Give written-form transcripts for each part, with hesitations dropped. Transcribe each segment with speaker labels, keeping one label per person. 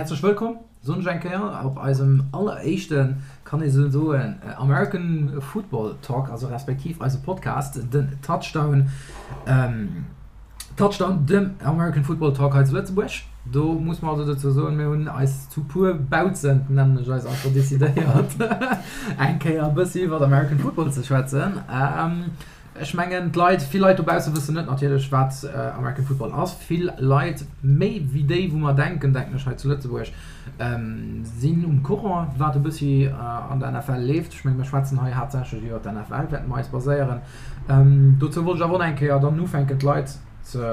Speaker 1: Häerzlech wëllkomm, soen ech eng Kéier, op eisem alleréischten, kann ee sou soen, American Football Talk, also respektiv eise Podcast, den Touchdown, Touchdown, dem American Football Talk hei zu Lëtzebuerg. Do muss mer also dozou soen, mir hunn eis zu puer Bautzen, nennen ech eis einfach, decidéiert, eng Kéier e bëssi iwwert American Football ze schwätzen. Ech mengen, d'Leit, vill Leit dobausse wëssen net natierlech, wat American Football ass. Vill Leit, méi wéi déi, wou mer denken, denken ech, hei zu Lëtzebuerg, sinn um Courant, wat e bëssi an der NFL leeft. Ech mengen, mir schwätzen hei haaptsächlech iwwer d'NFL, wäerte mer eis baséieren. Dozou wollt ech awer och nach eng Kéier dann ufänken, d'Leit ze,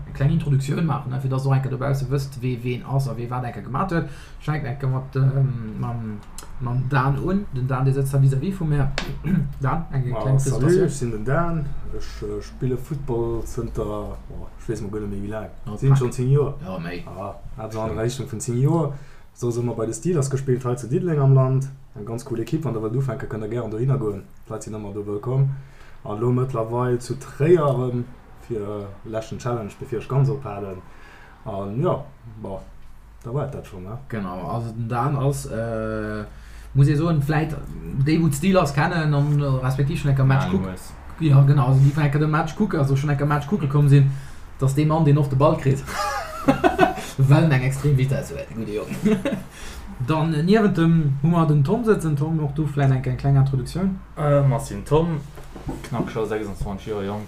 Speaker 1: eng kleng Introduktioun maachen, fir dass Der och eng Kéier dobausse wësst, wee ween ass a wee wat eng Kéier gemaat huet. Ech fänken eng Kéier mat mam mam Dan un. Den Dan, dee sëtzt da vis-à-vis vu mär. Dan, eng kleng
Speaker 2: Presentatioun. Salut, ech sinn den Dan. Ech spille Football zënter, oh, ech weess mol guer net méi wéi laang. Sinn schonn 10 Joer.
Speaker 1: Jo, méi.
Speaker 2: Ah, eppes an der Richtung vun 10 Joer. Soss ëmmer bei de Steelers gespillt hei zu Diddeleng am Land. Eng ganz cool Ekipp. Wann der wëllt ufänken, kënnt der gären dohinner goen. D'Leit sinn ëmmer do wëllkomm. An elo mëttlerweil zu Tréier erëm fir e leschten Challenge, bevir ech ganz ophalen. An jo, bon. Da war et dat schonn, ne?
Speaker 1: Genau, also den Dan ass, muss ee soen, vläit déi wou d'Steelers kennen an respektiv schonn eng Kéier Match kucken, jo genau, also déi vläit eng Kéier de Match kucken, also schonn eng Kéier Match kucke komm sinn, dat ass dee Mann deen oft de Ball kritt, well en eng extrem Vitesse huet, de gudde Jong. Dann niewent em hu mer den Tom sëtzen. Tom, och du vläit eng Kéier eng kleng Introduktioun?
Speaker 3: Ech sinn Tom, knapp scho 26 Joer jonk.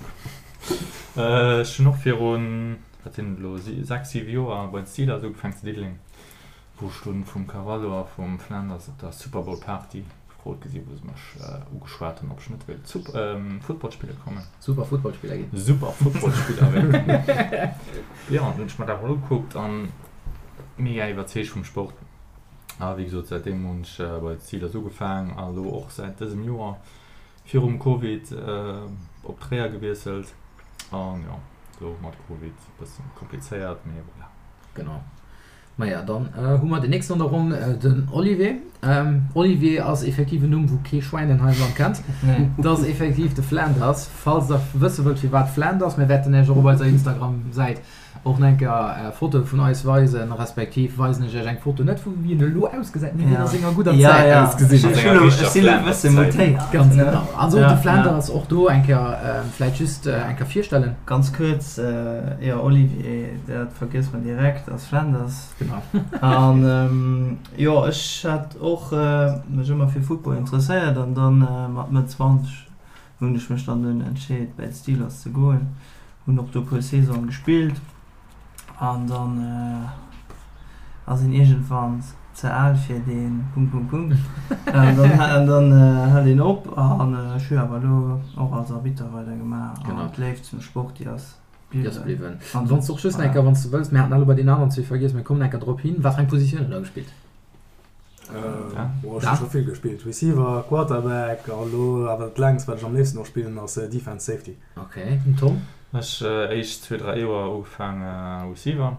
Speaker 3: Ech hunn och virun Wat sinn et elo, 6, 7 Joer bei den Steelers ugefaangen zu Diddeleng, wou ech dunn vum Carvalho a vum Flanders op der Super Bowl Party gefrot gi sinn, wou se mech ugeschwat hunn, ob ech net wéilt Football spille kommen.
Speaker 1: Super Footballspiller ginn.
Speaker 3: Super Footballspiller wéilt ginn. Jo, an dunn hunn ech mer dat mol ugekuckt an mega iwwerzeegt vum Sport. A wéi gesot, säitdeem hunn ech bei de Steelers ugefaangen a elo och säit dësem Joer Virum Covid op Tréier gewiesselt an jo, lo mat Covid e bëssen komplizéiert, mee voilà.
Speaker 1: Genau. Maja, dann hu mer den nächsten an der Ronn, den Olivier. Olivier ass effektiv en Numm, wou kee Schwäin en hei am Land kennt. Dat ass effektiv de Flanders. Falls der wësse wëllt, firwat Flanders, mir wäerten Iech och op eiser Instagram-Säit Och nach eng Kéier Fotoe vun eis weisen, respektiv weisen ech iech eng Foto, net vu wéi en elo ausgesäit, mee wéi en a senger gudder Zäit ausgesinn huet. Ganz genau. Also de Flanders och do eng Kéier vläit just eng Kéier virstellen.
Speaker 4: Ganz kuerz, jo Olivier, dat vergësst mer direkt, ass Flanders.
Speaker 1: Genau.
Speaker 4: An jo, ech hat och mech ëmmer fir Football interesséiert an dann mat Mëtt 20 hunn ech mech dann dunn entscheet bäi d'Steelers ze goen. Hunn och do puer Saisonen gespillt an dann ass een iergendwann ze al fir dee Punkt Punkt Punkt an dann hält een op an ech hu awer elo och als Arbitter weider gemaach an d'Léift zum Sport déi ass
Speaker 1: bliwwen. An wann s de och just enker, wann s de wëlls, mir haten elo bei deenen aneren zwee vergiess, mir kommen enker drop hin, wat fir eng Positioun huet der gespillt?
Speaker 2: Boah, ech hu scho vill gespillt, Receiver, Quarterback a lo awer dat längst wat ech am léifsten och spillen ass Defense, Safety.
Speaker 1: Ok, den Tom?
Speaker 3: Ech éischt zwee, dräi Joer ugefaang Receiver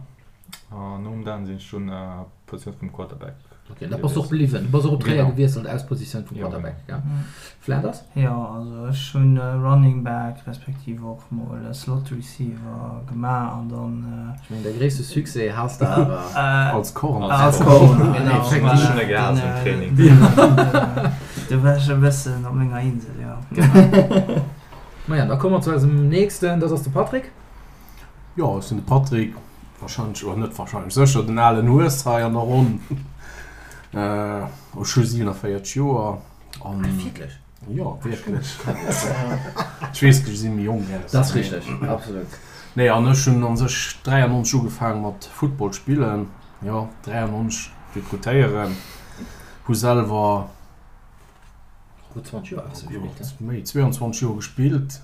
Speaker 3: an nom Dan sinn ech dunn Positioun vum Quarterback.
Speaker 1: Ok, da bass de och bliwwen, du bass och op Tréier gewiesselt aus Positioun vum Quarterback, gell? Flanders?
Speaker 4: Jo, also ech hunn Running Back respektiv och mol Slot Receiver gemaach an dann.
Speaker 1: Ech mengen däi gréisste Succès has de awer.
Speaker 2: Als Corner.
Speaker 4: Als Corner,
Speaker 3: genau. Ech hunn e gehaasst um Training.
Speaker 4: Do war ech e bëssen op menger Insel, jo.
Speaker 1: Genau. Maja, da komme mer zu eisem nächsten, dat ass de Patrick.
Speaker 2: Jo, ech sinn de Patrick, warscheinlech, oder net warscheinlech, sécher den alen Hues hei an der Ronn. Ech hu 47 Joer an.
Speaker 1: Ah, wierklech?
Speaker 2: Jo, wierklech. Ech weess, ech si méi jonk
Speaker 1: aus. Dat ass richteg, absolut.
Speaker 2: Nee, an ech hunn a sech 93 ugefaange mat Football spillen, jo, 93 rekrutéieren, hu selwer.
Speaker 1: Gutt 20 Joer has de gespillt,
Speaker 2: ne? Méi, 22 Joer gespillt.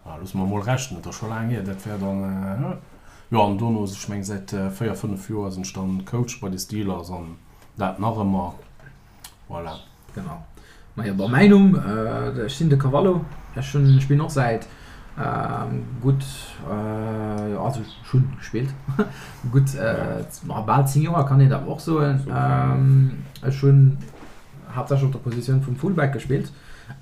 Speaker 2: Ah, loosse mer mol rechnen, dat ass scho laang hier, dat wär dann, jo, an dono, ech meng säit 4, 5 Joer sinn ech dann Coach bei de Steelers an dat nach ëmmer, voilà.
Speaker 1: Genau. Majo, bon, mäin Numm, ech sinn de Cavallo, ech hunn, spillen och säit gutt, also ech hunn gespillt, gutt bal 10 Joer kann een dat och soen. Ech hunn haaptsächlech op der Positioun vum Fullback gespillt.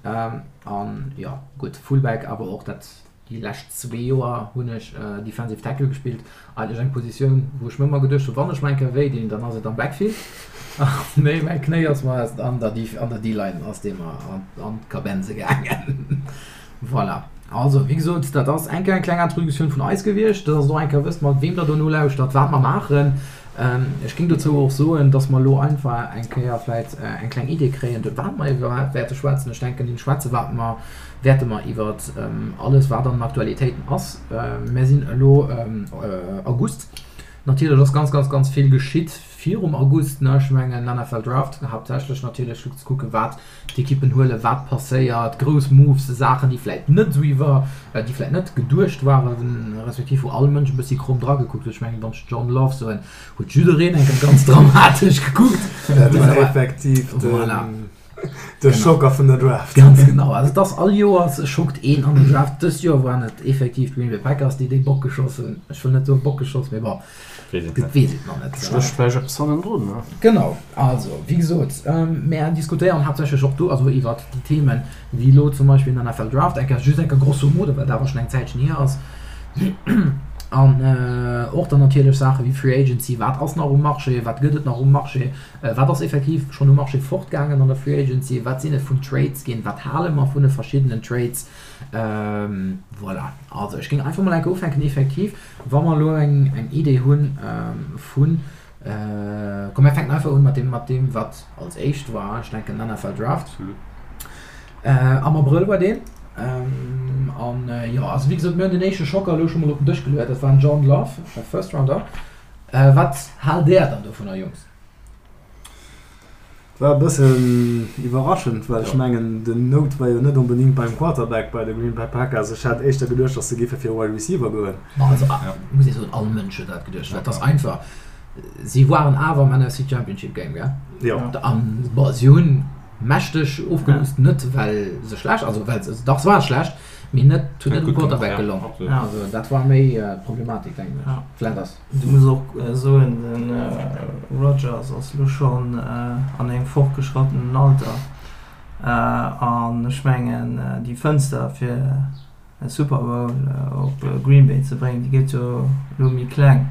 Speaker 1: An jo, gutt, Fullback, awer och dat. Déi lescht zwee Joer hunn ech Defensive Tackle gespillt, eigentlech eng Positioun, wou ech mir ëmmer geduecht hunn, wann ech mol eng Kéier wéi dinn, dann ass et am Backfield. Mee mäi Knéi ass mer an der D-Line ass dee mer an d'Kabenze gaangen. Voilà. Also, wéi gesot, dat ass eng Kéier eng kleng Introduktioun vun eis gewiescht, dass Der och eng Kéier wësst, mat weem Der do nolauschtert, wat mer maachen. Ech géing dozou och soen, dass mer elo einfach eng Kéier vläicht eng kleng Idee kréien, wat mer iwwerhaapt wäerte schwätzen. Ech denken, deem schwätze wat mer wäerte mer iwwer alles, wat an den Aktualitéiten ass. Mer sinn elo August. Natierlech ass ganz, ganz, ganz vill geschitt virum August. Ech mengen, NFL Draft haaptsächlech natierlech, fir ze kucken, wat d'Ekippen huelen, wat passéiert, grouss Moves, Saachen, déi vläit net esou iwwer, déi vläit net geduecht waren, respektiv wou all Mënsch e bëssi kromm dragekuckt huet. Ech mengen, wann ech John Love soen, huet jiddereen eng Kéier ganz dramatesch gekuckt.
Speaker 2: Dat war effektiv den, de Schocker vun der Draft.
Speaker 1: Ganz genau. Also et ass all Joers schockt een an der Draft. Dëst Joer waren et effektiv d'Green Bay Packers, déi dee Bock geschoss hunn. Ech wëll net soen Bock geschoss, mee bon.
Speaker 3: Dat
Speaker 1: weess et nach net.
Speaker 5: Stécht vläicht eppes hannendrun, ne?
Speaker 1: Genau. Also, wéi gesot, mär diskutéieren haaptsächlech och do, also iwwert déi Themen, wéi elo zum Beispill den NFL Draft, eng Kéier, just eng Kéier grosso modo, well dat awer schonn eng Zäitchen hier ass. An och dann natierlech Saache wéi Free Agency, wat ass nach um Marché, wat gëtt et nach um Marché, wat ass effektiv schonn um Marché fortgaangen an der Free Agency, wat sinn et vun Trades ginn, wat hale mer vun de verschiddenen Trades. Voilà. Also, ech géing einfach mol eng Kéier ufänken, effektiv. Wa mer elo eng Idee hu vun, komm mir fänken einfach un mat deem, mat deem wat als éischt war, ech denken den NFL Draft. Am Abrëll war deen. An jo, also wéi gesot, mir hunn den éischte Schocker elo scho mol op den Dësch geluet, dat war den Jordan Love, First Rounder. Wat haalt Där dann dovunner, Jungs?
Speaker 2: War e bëssen iwwerraschend, well ech mengen den Note war jo net onbedingt beim Quarterback bei de Green Bay Packers. Ech hat éischter geduecht, datt se géife fir e Wide Receiver goen.
Speaker 1: Also muss ee soen, all Mënsch huet dat geduecht, well et ass einfach, si waren awer am NFC Championship Game, gell?
Speaker 2: Jo.
Speaker 1: An bon, si hunn mächteg ofgelost, net well se schlecht, also well se, dach se ware schlecht, mee net, huet net um Quarterback gelong. Also dat war méi d'Problematik, denken ech. Vläicht ass.
Speaker 4: Du muss och soen, de Rodgers ass elo schonn an engem fortgeschrattenen Alter an ech mengen déi Fënster fir e Super Bowl op Green Bay ze bréngen, déi gëtt jo elo méi kleng.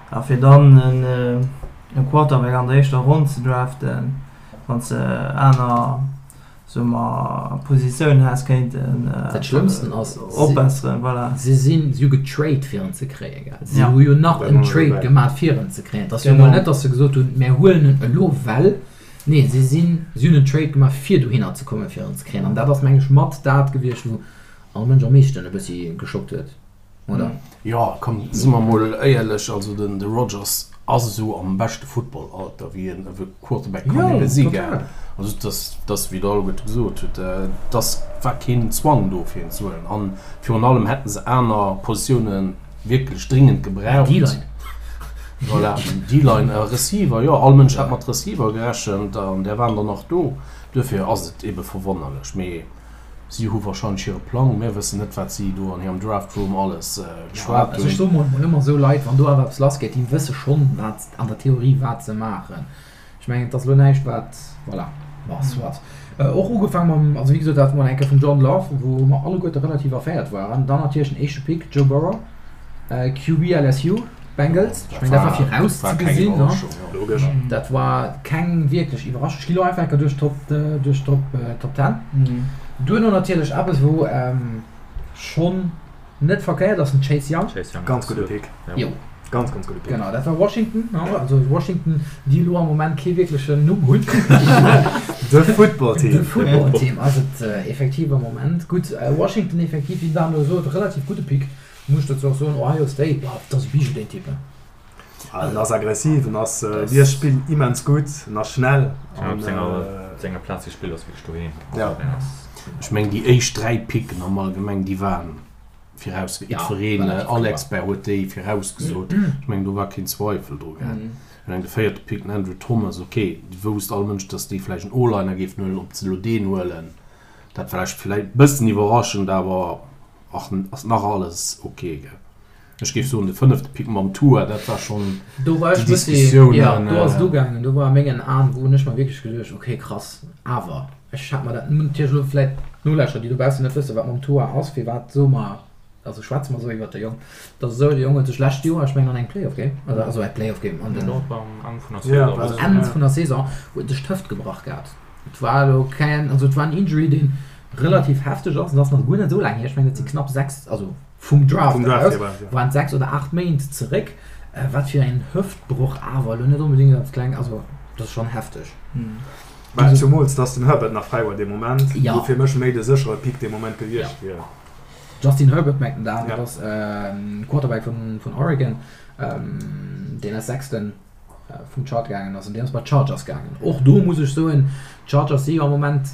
Speaker 4: A fir dann e Quarterback an der éischter Ronn ze draften, wann s de aner soe mer, Positioun häss kéinten
Speaker 1: Dat Schlëmmsten ass,
Speaker 4: opbesseren, voilà.
Speaker 1: Si sinn, si hu getrade fir en ze kréien, gell? Si hu jo nach en Trade gemaat fir en ze kréien. Et ass jo emol net, datt se gesot hunn, mär huelen en elo well. Nee, si sinn, si hunn en Trade gemaach fir dohinner ze kommen, fir en ze kréien. An dat ass, meng ech, mat dat gewiescht, wou all Mënsch am meeschten e bëssi geschockt huet. Oder?
Speaker 5: Jo, komm, si mer mol éierlech, also den de Rodgers ass esou am beschte Footballalter, wéi en e Quarterback kann ebe si, gell? Also et ass, et ass wéi der alleguerte gesot hutt, et ass, war keen Zwang do fir en ze huelen. An virun allem hätte se aner Positioune wierklech dringend gebraucht.
Speaker 1: D-Line.
Speaker 5: Voilà, D-Line a Receiver, jo, all Mënsch hat mat Receiver gerechent an där waren der nach do. Duerfir ass et ebe verwonnerlech. Mee Si hu wahrscheinlech hire Plang, mir wëssen net wat si do an hirem Draft Room alles geschwat
Speaker 1: hunn. Also ech soe mol ëmmer esou Leit, wann do awer eppes lass geet, déi wësse schonn wat an der Theorie wat se maachen. Ech mengen et ass elo näischt wat, voilà, bon soit. Och ugefaang mam, also wéi gesot dat mol eng Kéier vum Jordan Love, wou mer alleguerte relativ erféiert waren. Dann natierlech den éischte Pick, Joe Burrow, QB LSU. Bengals, ech mengen dat war viraus ze gesinn, ne?
Speaker 2: Logesch.
Speaker 1: Dat war keng wierklech Iwwerraschung. Ech gi lo einfach enker duerch d'Top duerch d'Top Top 10. Duerno natierlech eppes wou schonn net verkéiert ass, den Chase Young.
Speaker 3: Chase Young,
Speaker 2: Ganz gudde Pick.
Speaker 1: Jo.
Speaker 2: Ganz ganz gudde Pick.
Speaker 1: Genau, dat war Washington, ne? Also Washington, déi elo am Moment kee wierklechen Numm hunn.
Speaker 2: De Football Team.
Speaker 1: De Football Team ass et effektiv am Moment. Gutt, Washington effektiv, wéi den Dan elo sot, relativ gudde Pick. Muss ech dozou och soen, Ohio State, boah, dat ass e Bijou deen Typ, he.
Speaker 2: En ass aggressiv, en ass, liest d'Spill immens gutt, en ass schnell.
Speaker 3: An op senger, senger Plaz gespillt ass wierklech doheem.
Speaker 2: Ja.
Speaker 5: Ech mengen déi éischt 3 Picken am Allgemeng déi waren viraus, jiddwereen, all Expert huet déi virausgesot. Ech mengen do war keen Zweifel dru gell. Ech mengen de véierte Pick, den Andrew Thomas, ok, wousst all Mënsch, datt déi vläicht en O-Liner géifen huelen, ob se elo deen huelen, dat war vläicht e bëssen iwwerraschend, awer Ach, ass nach alles ok, gell? Ech géif soen, de fënnefte Pick mam Tua, dat war schonn
Speaker 1: Do war
Speaker 5: déi
Speaker 1: ech bëssi,
Speaker 5: Diskussiounen.
Speaker 1: jo, do ass et ugaangen. Do war a mengen Aen, wou hunn ech mer wierklech geduecht, ok, krass, awer ech hat mer dat, natierlech elo vläit d'Nolauschterer, déi dobaussen net wëssen, wat mam Tua ass, firwat soe mer. Also schwätze mer esou iwwert de Jong. Et ass esou, de Jong huet sech lescht Joer, ech mengen an engem Playoff Game, also also e Playoff Game an den Enn vun der Saison, huet sech d'Hëft gebrach gehat. Et war elo keng, also et war en Injury, dee relativ hefteg ass, an ass nach guer net esou laang hier, ech mengen et si knapp 6, also vum Draft aus, waren et 6 oder 8 Méint zeréck. Wat fir en Hëftbroch awer elo net onbedéngt als kleng, also dat ass schonn hefteg.
Speaker 2: Mä zumools, dass den Herbert nach fräi war dee Moment, wou fir mech méi de séchere Pick dee Moment gewiescht wier.
Speaker 1: Justin Herbert mengt den Dan, dat ass Quarterback vun Oregon, deen als Sechsten vum Chart gaangen ass an deen ass bei d'Chargers gaangen. Och do muss ech soen, d'Chargers si jo am Moment,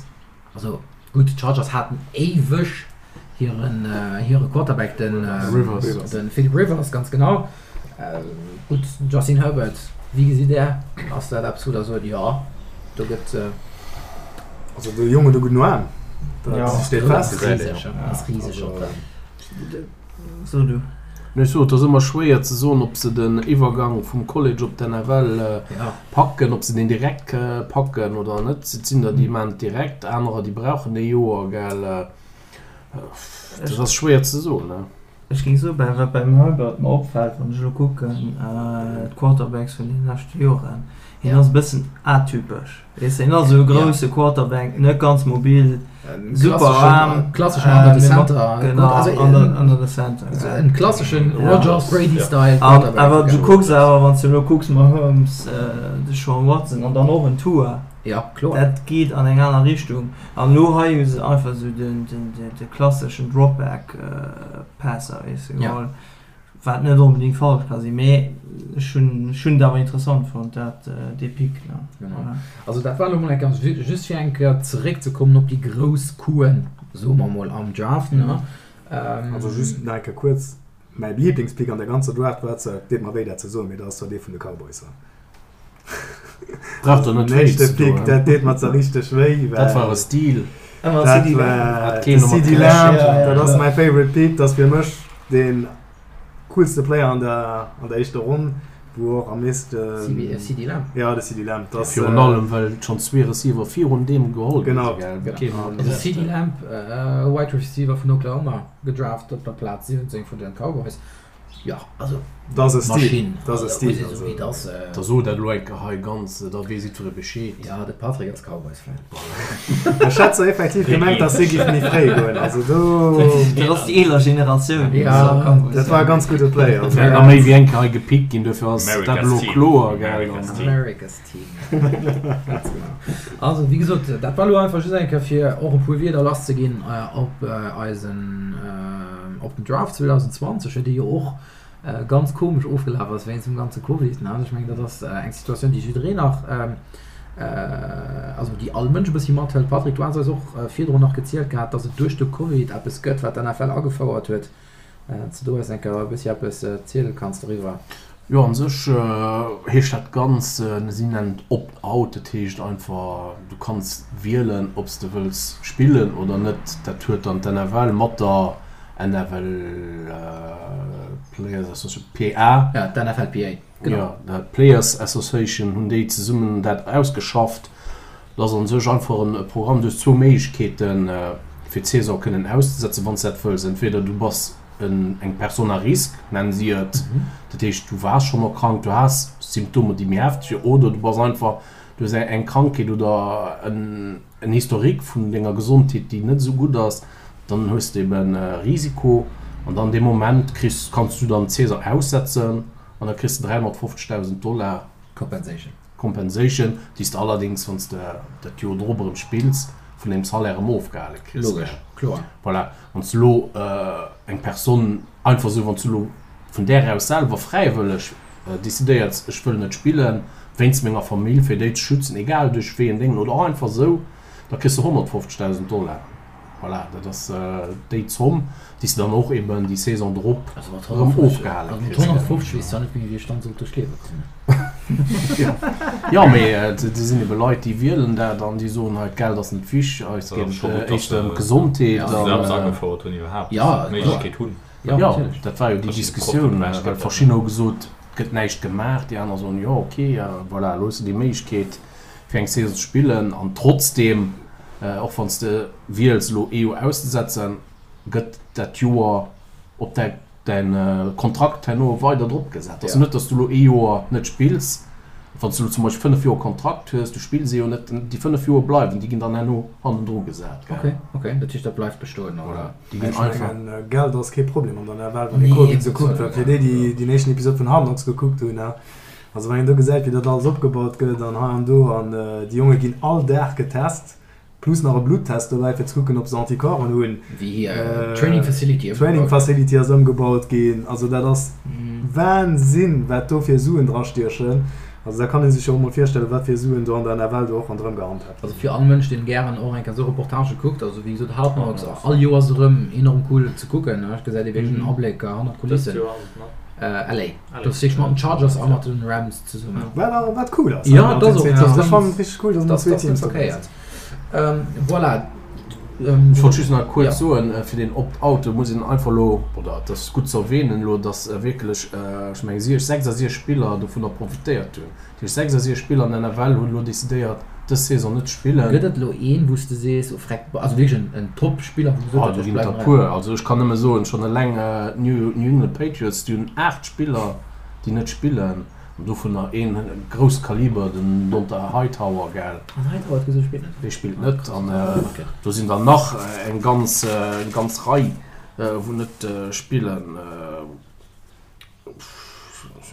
Speaker 1: also gutt, d'Chargers haten éiweg hiren hire Quarterback, den de Philip Rivers, ganz genau. Gutt, Justin Herbert, wéi gesitt Där, ass dat eppes wou Der sot, jo, do gëtt.
Speaker 2: Also de Jong huet e gudden Aarm, dat steet fest.
Speaker 1: Ass riseg op der.
Speaker 4: So du.
Speaker 5: Ech sot, et ass ëmmer schwéier ze soen, ob se den Iwwergang vum College op d'NFL packen, ob se deen direkt packen oder net. Et sinn der, déi maachen et direkt, anerer, déi brauchen ee Joer, gell. Dat ass schwéier ze soen.
Speaker 4: Ech géing soen, bei wat beim Herbert mer opfält, wann ech elo kucken, d'Quarterbacks vun deene leschte Joren, hien ass e bëssen atypesch, weess de, hien ass esou e grousse Quarterback, net ganz mobil, super Aarm,
Speaker 1: Klasseschen under the center,
Speaker 4: genau, under, under the center,
Speaker 1: en klasseschen Rodgers-Brady-Style Quarterback.
Speaker 4: Awer du kucks awer, wann s de elo kucks, Mahomes, Deshaun Watson an dann och en Tua,
Speaker 1: Ja, kloer.
Speaker 4: Dat geet an eng aner Richtung. An elo hei hu se einfach esou den, den, de klasseschen Dropback Passer, weess de, geholl. Wat net onbedéngt falsch ka sinn, mee ech hunn, ech hunn et awer interessant fonnt, dat, dee Pick, ne.
Speaker 1: Genau. Voilà. Also dat war elo mol eng ganz, just fir eng Kéier zeréckzekommen op déi grouss Couen, soe mer mol, am Draft, ne.
Speaker 2: Also just nach eng Kéier kuerz, mäi Liblingspick an der ganzer Draft war zwar, et deet mer wéi dat ze soen, mee dat ass zwar dee vun de Cowboys.
Speaker 5: Brauch der net wéi ze doen.
Speaker 2: Dat deet mer zwar richteg wéi.
Speaker 5: Dat war e Stil.
Speaker 2: Dat war de CeeDee Lamb. Dat ass mäi favorite Pick. Dat ass fir mech dee coolste Player an der an der éischter Ronn, wou och am meeschten.
Speaker 1: CeeDee Lamb?
Speaker 2: Jo, de CeeDee Lamb.
Speaker 5: Dat Virun allem, well schonn zwee Receiver virun deem geholl
Speaker 2: gi sinn.
Speaker 5: Genau.
Speaker 1: Also CeeDee Lamb, Wide Receiver vun Oklahoma, gedraft op der Plaz 17 vun den Cowboys. Jo, also
Speaker 2: Dat ass e Stil. Dat ass e Stil.
Speaker 1: Also, dat ass.
Speaker 5: Da so dat elo eng Kéier hei ganz, da weess jiddweree Bescheed.
Speaker 1: Jo, de Patrick ass Cowboys-Fan.
Speaker 2: Ech hat zwar effektiv gemengt, dass si géif méi fréi goen. Also do.
Speaker 4: Dat ass déi eeler Generatioun.
Speaker 2: Jo, dat war e ganz gudde Play.
Speaker 5: Et wäert nach méi wéi eng Kéier hei gepickt ginn, duerfir ass dat elo kloer, gell?
Speaker 1: America's Team. Ganz genau. Also, wéi gesot, dat war elo einfach just eng Kéier, fir och e puer Wierder lasszeginn op eisen. Op den Draft 2020, dee jo och ganz komesch ofgelaf ass wéinst dem ganze Covid, ne? Also ech mengen, dat ass eng Situatioun, déi jiddereen nach, also déi all Mënsch e bëssi mathëlt. Patrick, du has eis och virdrun nach gezielt gehat, datt et duerch de Covid eppes gëtt, wat d'NFL agefouert huet. Wann s de do eis eng Kéier e bëssi eppes ziele kanns doriwwer.
Speaker 5: Jo, an sech heescht dat Ganzt, si nennen et Opt-out, dat heescht einfach, du kanns wielen, ob s de wëlls spillen oder net. Dat huet dann d'NFL mat der NFL Players Association, PA.
Speaker 1: Ja, d'NFLPA,
Speaker 5: genau. Jo, d'Players Association hunn déi zesummen dat ausgeschafft. Dat ass an sech einfach e Programm, du hues zwou Méiglechkeeten, fir d'Saison kënnen auszesetzen, wann s de dat wëlls. Entweder du bass eng Personne à risque, nennen si et, dat heescht, du waars schonn erkrankt, du has Symptomer, déi méi hefteg sinn, oder du bass einfach, du hues eng Krankheet oder en Historique vun denger Gesondheet, déi net esou gutt ass, dann hues de eben e Risiko an dann dee Moment kriss, kanns du dann d'Saison aussetzen an da kriss de 350.000 Dollar
Speaker 1: Compensation.
Speaker 5: Compensation, déi s de allerdéngs, wann s de dat Joer drop erëm spills, vun deem Salaire erëm ofgehale kriss.
Speaker 1: Logesch, kloer.
Speaker 5: Voilà. Wann s de elo eng Personne einfach esou, wann s du elo vun där aus selwer fräiwëlleg decidéiers, ech wëll net spillen, wéinst menger Famill, fir déi ze schützen, egal duerch wéi en Déngen oder och einfach esou, da kriss de 150.000 Dollar. Voilà, dat ass déi Zomm, déi s de dann och eben déi Saison drop erëm ofgehale
Speaker 1: kriss. Also mat 150 weess zwar net méi, wéi ech dann sollt duerch d'Liewe kommen.
Speaker 5: Jo, mee et sinn ebe Leit, déi wielen dat an déi soen, hei, d'Geld ass net wichteg, eis geet et éischter ëm d'Gesondheet.
Speaker 3: Dass se dat eppes agefouert hunn iwwerhaapt, d'Méiglechkeet hunn.
Speaker 5: Jo, dat war jo déi Diskussioun, well verschiddener hu gesot, et gëtt näischt gemaach, déi aner soen, jo, ok, voilà, elo hues de déi Méiglechkeet, fir eng Saison ze spillen an trotzdeem, och wann s de wiels elo ee Joer auszesetzen, gëtt dat Joer. op däi däin Kontrakt herno weider drop gesat. Ass net, datt s du elo ee Joer net spills, wann s du elo zum Beispill 5 Joer Kontrakt hues, du spills ee Joer net, déi 5 Joer bleiwen, déi ginn dann herno hannendru gesat,
Speaker 1: gell? Ok, ok, dat heescht dat bleift bestoen, oder?
Speaker 5: Voilà, déi ginn
Speaker 2: Ech
Speaker 5: einfach.
Speaker 2: mengen, Geld ass kee Problem an der NFL, wann ee Covid esou kuckt, well fir déi, déi deen éischten Episod vun Hard Knocks gekuckt hunn, also wann een do gesäit, wéi dat alles opgebaut gëtt an hei an do an déi Jonge ginn all Dag getest, Plus nach e Bluttest dobäi fir ze kucken ob se Anticorpsen hunn.
Speaker 1: Wéi hir Training Facility ëmgebaut ginn.
Speaker 2: Training Facility ass ëmgebaut ginn. Also dat ass Wahnsinn wat do fir Suen dra stiechen. Also da kann ee sech jo och mol virstellen wat fir Suen do an der NFL do och ronderëm gehandhabt
Speaker 1: ginn. Also fir all Mënsch deen gären och eng Kéier esou Reportagë kuckt, also wéi gesot Hard Knocks all Joers erëm enorm cool ze kucken, et gesäit ee wierklech en Abléck hannert d'Kulissen. LA. Do ass wierklech mat den Chargers a mat den Rams zesummen.
Speaker 2: Wat wat cool ass.
Speaker 1: Ja, dat ass och.
Speaker 2: Ech fannen et richteg cool, dass elo zwee Teams dobäi
Speaker 1: sinn. Voilà.
Speaker 5: Ech wollt just nach kuerz soen, fir deen Opt-out, do muss een einfach elo, oder et ass gutt ze erwähnen elo, dass wierklech, ech mengen 66 Spiller dovunner profitéiert hunn. Dat heescht 66 Spiller an der NFL hunn elo decidéiert, dës Saison net ze spillen.
Speaker 1: Gëtt et elo een, wou s de sees, oh freck, also wierklech en Top-Spiller, wou gesot
Speaker 5: huet, ech bleiwen hei? Puer. Also ech kann nëmme soen, schonn eleng d'New England Patriots, déi hunn 8 Spiller, déi net spillen, an dovunner een grousst Kaliber, den Dont'a Hightower, gell?
Speaker 1: An Hightower huet gesot, ech spillen net.
Speaker 5: Dee spillt net. An do sinn der nach eng ganz, eng ganz Rei, wou net spillen.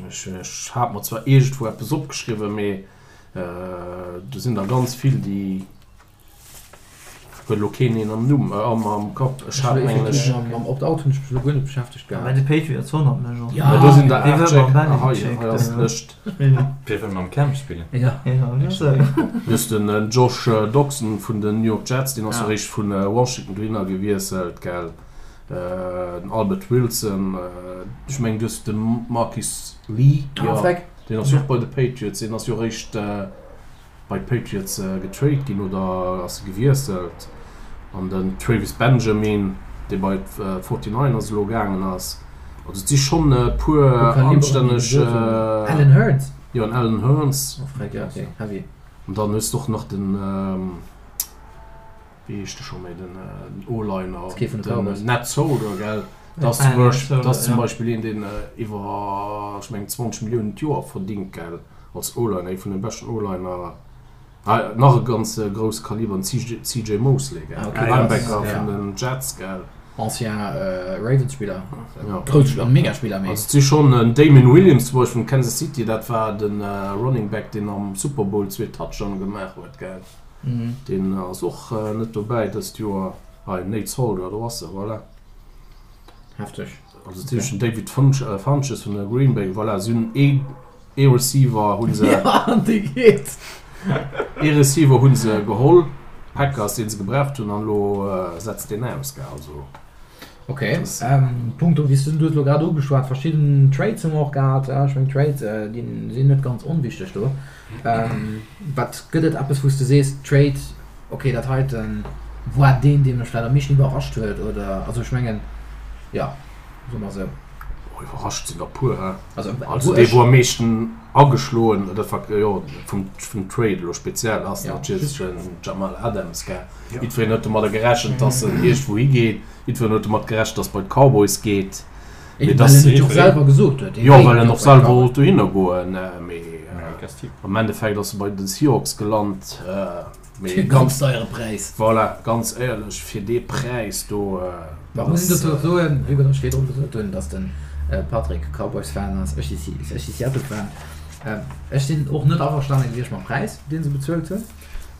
Speaker 5: Ech hat mer zwar iergendwou eppes opgeschriwwen, mee do sinn der ganz vill, déi huet elo keen een am Numm, am Kapp.
Speaker 1: Ech hat mengen ech. Mam Opt-out hunn ech mech elo guer net beschäftegt
Speaker 4: gehat. Bei de Patriots wonnert mech och.
Speaker 5: Jo, do sinn der 8 Stéck. Ah, hei, hei ass d'Lëscht.
Speaker 3: Wie wëll mam Cam spillen?
Speaker 1: Jo.
Speaker 5: Du hues den Josh Doctson vun den New York Jets, deen ass jo eréischt vu Washington dohinner gewiesselt, gell? Den Albert Wilson, ech mengen du hues de Marquis Lee, jo, deen ass jo och bei de Patriots, deen ass jo eréischt bei d'Patriots getrade ginn oder ass e gewiesselt. An den Travis Benjamin, dee bei d'Forty-Niners elo gaangen ass. Also et si schonn e puer anstänneg.
Speaker 1: Allen Hurns?
Speaker 5: Jo, en Allen Hurns. An dann hues de och nach den. Wéi heescht de scho méi, den O-Liner, den Nat Solder, gell? Dat ass zum Beispill, dat ass zum Beispill een, deen iwwer, ech mengen, 20 Milliounen d'Joer verdingt, gell, als O-Liner, ee vun de beschten O-Liner. Nach e ganz grousse Kaliber, den CJ Mosley, gell, Linebacker vun den Jets, gell.
Speaker 1: Ancien Ravens-Spiller, grousse Spiller, Mega-Spiller,
Speaker 5: mee. Also et si schonn, den Damien Williams zum Beispill vun Kansas City, dat war de Running Back, deen am Super Bowl zwee Touchdowne gemaach huet, gell. Deen ass och net dobäi dëst Joer. Hei, Nate Solder, do ass e, voilà.
Speaker 1: Hefteg.
Speaker 5: Also dat heescht den David Funches vun der Green Bay, voilà, si hunn ee ee Receiver hu se.
Speaker 1: Jo, an dee geet.
Speaker 5: Ee Receiver hu se geholl, Packers, dee se gebraucht hunn, an elo setzt deen aus, gell, also.
Speaker 1: Ok, punkto, wéi s du hues elo grad ugeschwat, verschidden Trades hu mer och gehat. Ech mengen Trades, déi sinn net ganz onwichteg do. Wat gëtt et eppes wou s de sees, Trade, ok dat heiten war deen dee mech vläicht am meeschten iwwerrascht huet oder, also ech mengen, jo, soe mer esou.
Speaker 5: Oh iwwerrascht sinn der puer, he. Also dee wou am meeschten ageschloen, dat war jo vum Trade elo speziell, ass natierlech den Jamal Adams, gell. Jiddwereen huet domadder gerechent, dass en iergendwou higeet. Jiddwereen huet domat gerechent, dass bei d'Cowboys geet.
Speaker 1: Mee well en et jo och selwer gesot huet.
Speaker 5: Jo, well en och selwer wollt dohinner goen. Mee am Endeffekt ass e bei de Seahawks gelant.
Speaker 1: Mee ganz deiere Präis.
Speaker 5: Voilà, ganz éierlech, fir dee Präis do.
Speaker 1: Mä muss een dozou och soen, wéi ech virdrun gesot hunn, dass de Patrick Cowboys-Fan ass, ech si Seattle-Fan. Ech sinn och net averstane gewiescht mam Präis, dee se bezuelt hunn.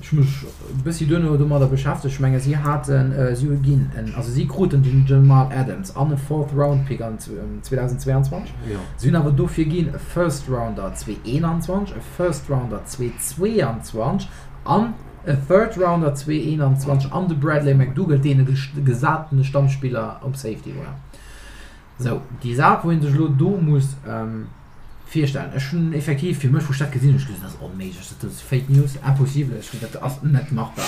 Speaker 1: Ech hu mech e bëssi duerno domadder beschäftegt. Ech menge si haten, si hu ginn en, also si kruten den Jamal Adams an e Fourth Round Pick an 2022. Si hunn awer dofir ginn e First Rounder 2021, e First Rounder 2022 an e Third Rounder 2021 an de Bradley McDougald, deen e gesatene Stammspiller op Safety war. Sou, déi Saach, wou ee sech elo do muss virstellen, ech hunn effektiv fir mech, wou ech dat gesinn hunn, ech gesot, dat ass onméiglech, dat ass Fake News, impossible, ech hunn, dat ass net machbar.